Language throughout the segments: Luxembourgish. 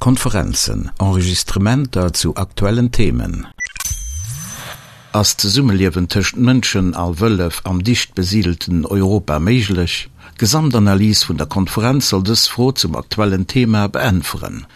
Konferenzen, Enregistrementer zu aktuellen Themen. Ass d'Zesummeliewen tëscht Mënschen a Wëllef am dicht besidelten Europa méiglech? D'Gesamtanalys vun der Konferenz soll dës Fro zum aktuellen Thema beäntweren.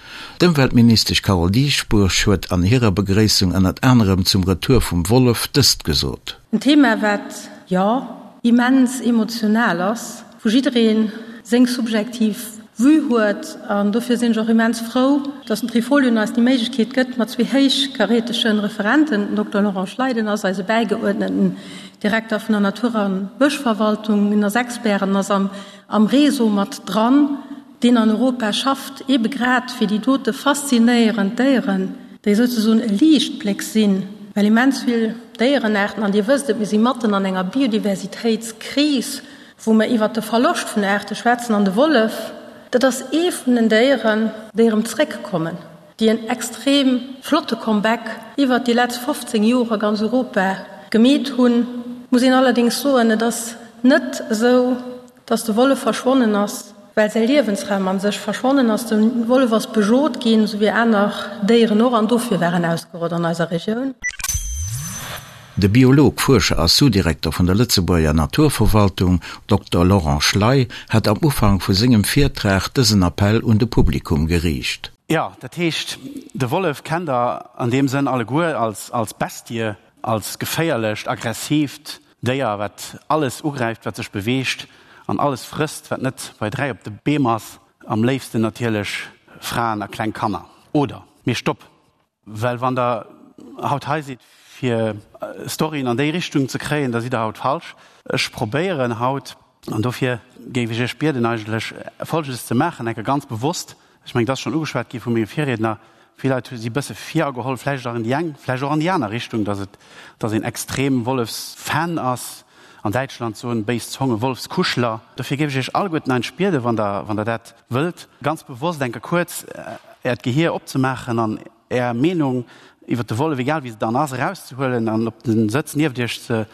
D'Ëmweltministesch Carole Dieschbourg huet an hirer Begréissung ënnert anerem zum Retour vum Wollef dëst gesot. En Thema wat, jo, immens emotional ass, wou jiddereen seng subjektiv Vue huet an dofir sinn ech och immens frou, dass den Trifolion eis déi Méiglechkeet gëtt, mat zwee héichkarätegen Referenten, den Dokter Laurent Schleiden ass eise bäigeuerdneten Direkter vun der Natur a Bëschverwaltung, en ass Expert an ass am am Réseau mat dran, deen an Europa schafft, eebe grad fir déi dote faszinéierend Déieren, déi souzesoen e Liichtbléck sinn, well immens vill Déierenaarten, an Dir wësst et, mir si matten an enger Biodiversitéitskris, wou mer iwwert de Verloscht vun Aarte schwätzen, an de Wollef, dat ass ee vun den Déieren, déi erëm zréckkommen, déi en extrem flotte Comeback iwwert déi letzt 15 Joer a ganz Europa gemeet hunn. Muss een allerdéngs soen, et ass net esou, dass de Wollef verschwonnen ass, well säi Liewensraum a sech verschwonnen ass. De Wollef ass bejot ginn, esou wéi aner Déieren och, an dofir war en ausgerott an eiser Regioun. De Biolog, Fuerscher a Sous-Direkter vun der Lëtzebuerger Naturverwaltung, Dokter Laurent Schley, hat am Ufank vu sengem Virtrag dësen Appell un de Publikum geriicht. Jo, dat heescht, de Wollef kennt der an deem Sënn alleguer als als Bestie, als geféierlecht, aggressiivt Déier, wat alles ugräift, wat sech beweegt an alles frësst, wat net bei 3 op de Beem ass, am léifsten natierlech Fraen a kleng Kanner. Oder? Mee stopp! Well wann Der haut hei sidd, fir Storyen an déi Richtung ze kréien, da sidd Der haut falsch. Ech probéieren haut, an dofir géif ech Iech bieden eigentlech, Folgendes ze maachen, enke ganz bewosst, ech mengen, et ass schonn ugeschwat gi vu menge Virriedner, vill Leit si bësse virageholl, vläicht och an déi eng, vläicht och an déi aner Richtung, dass et, dass een extrem Wollefsfan ass, an Däitschland soen béis Zonge Wolfskuschler. Dofir géif ech Iech alleguerten eigentlech bieden, wann Der, wann Der dat wëllt, ganz bewosst enke kuerz Äert Gehier opzemaachen an Är Meenung iwwer de Wollef, egal wéi se dann ass, erauszehuelen an op de Sëtz nieft Iech ze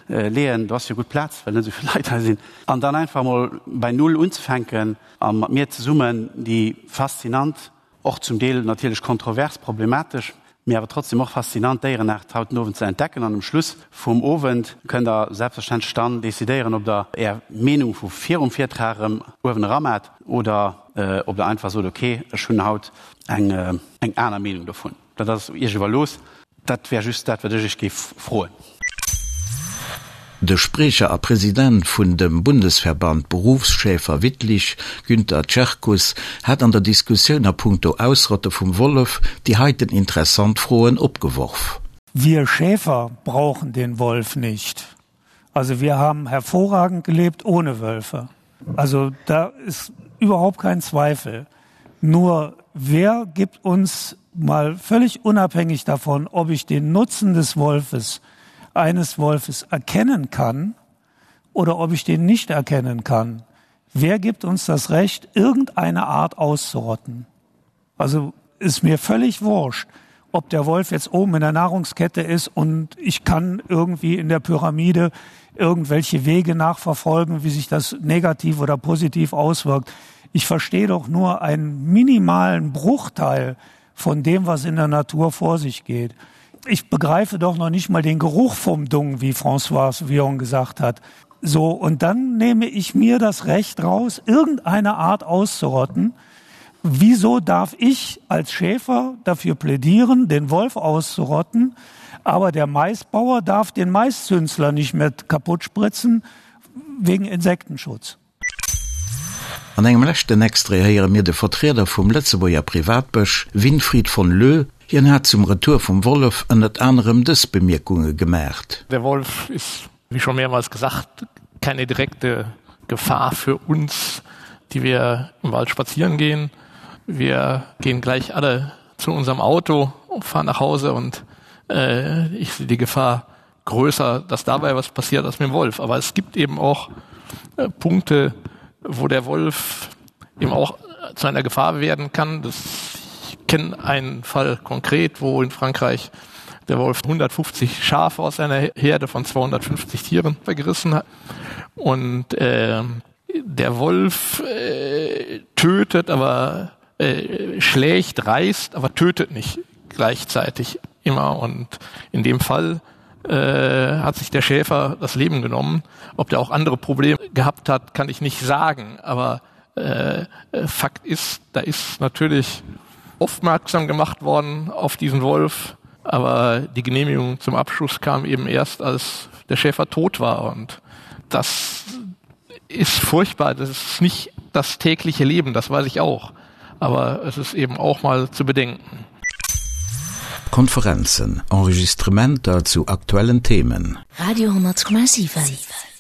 leeën, do ass jo gutt Plaz, well net esou vill Leit hei sinn, an dann einfach emol bei Null unzefänken a mat mir zesummen déi faszinant, Och zum Deel natierlech kontrovers, problematesch, mee awer trotzdem och faszinant Déierenaart haut den Owend ze entdecken. An um Schluss vum Owend kënnt der selbstverständlech dann decidéieren, ob der är Meenung vu virum Virtrag erëm uewen eramat oder ob der einfach sot, ok, ech hunn haut eng aner Meenung dovun. Dat ass Iech iwwerlooss. Dat wär just dat, wat ech Iech géif froen. De Spriecher a President vun dem Bundesverband Berufsschäfer Wittlich, Günther Czerkus, hat an der Diskussioun a punkto Ausrotte vum Wollef déi heiten interessant Froen opgeworf. Wir Schäfer brauchen den Wolf nicht. Also wir haben hervorragend gelebt ohne Wölfe. Also da ist überhaupt kein Zweifel. Nur wer gibt uns mal völlig unabhängig davon, ob ich den Nutzen des Wolfes eines Wolfes erkennen kann oder ob ich den nicht erkennen kann? Wer gibt uns das Recht, irgendeine Art auszurotten? Also ist mir völlig wurscht, ob der Wolf jetzt oben in der Nahrungskette ist und ich kann irgendwie in der Pyramide irgendwelche Wege nachverfolgen, wie sich das negativ oder positiv auswirkt. Ich verstehe doch nur einen minimalen Bruchteil von dem, was in der Natur vor sich geht. Ich begreife doch noch nicht mal den Geruch vom Dung, wie François Vion gesagt hat. So und dann nehme ich mir das Recht raus, irgendeine Art auszurotten. Wieso darf ich als Schäfer dafür plädieren, den Wolf auszurotten, aber der Maisbauer darf den Maiszünsler nicht mehr kaputt spritzen wegen Insektenschutz? An engem leschten Extrait héiere mir de Vertrieder vum Lëtzebuerger Privatbësch, Winfried von Lö. Hien hat zum Retour vum Wollef ënnert anerem dës Bemierkunge gemaacht. Der Wolf ist, wie schon mehrmals gesagt, keine direkte Gefahr für uns, die wir im Wald spazieren gehen. Wir gehen gleich alle zu unserem Auto und fahren nach Hause und äh, ich sehe die Gefahr größer, dass dabei was passiert als mit dem Wolf. Aber es gibt eben auch äh, Punkte, wo der Wolf eben auch zu einer Gefahr werden kann. Das, ich kenne einen Fall konkret, wo in Frankreich der Wolf 150 Schafe aus einer Herde von 250 Tieren vergerissen hat. Und äh, der Wolf äh, tötet, aber. äh, schlägt, reißt, aber tötet nicht gleichzeitig immer. Und in dem Fall äh, hat sich der Schäfer das Leben genommen. Ob der auch andere Probleme gehabt hat, kann ich nicht sagen. Aber äh, Fakt ist, da ist natürlich aufmerksam gemacht worden auf diesen Wolf. Aber die Genehmigung zum Abschuss kam eben erst, als der Schäfer tot war. Und das ist furchtbar. Das ist nicht das tägliche Leben, das weiß ich auch. Aber es ist eben auch mal zu bedenken. Konferenzen, Enregistrementer zu aktuellen Themen. Radio 10,7.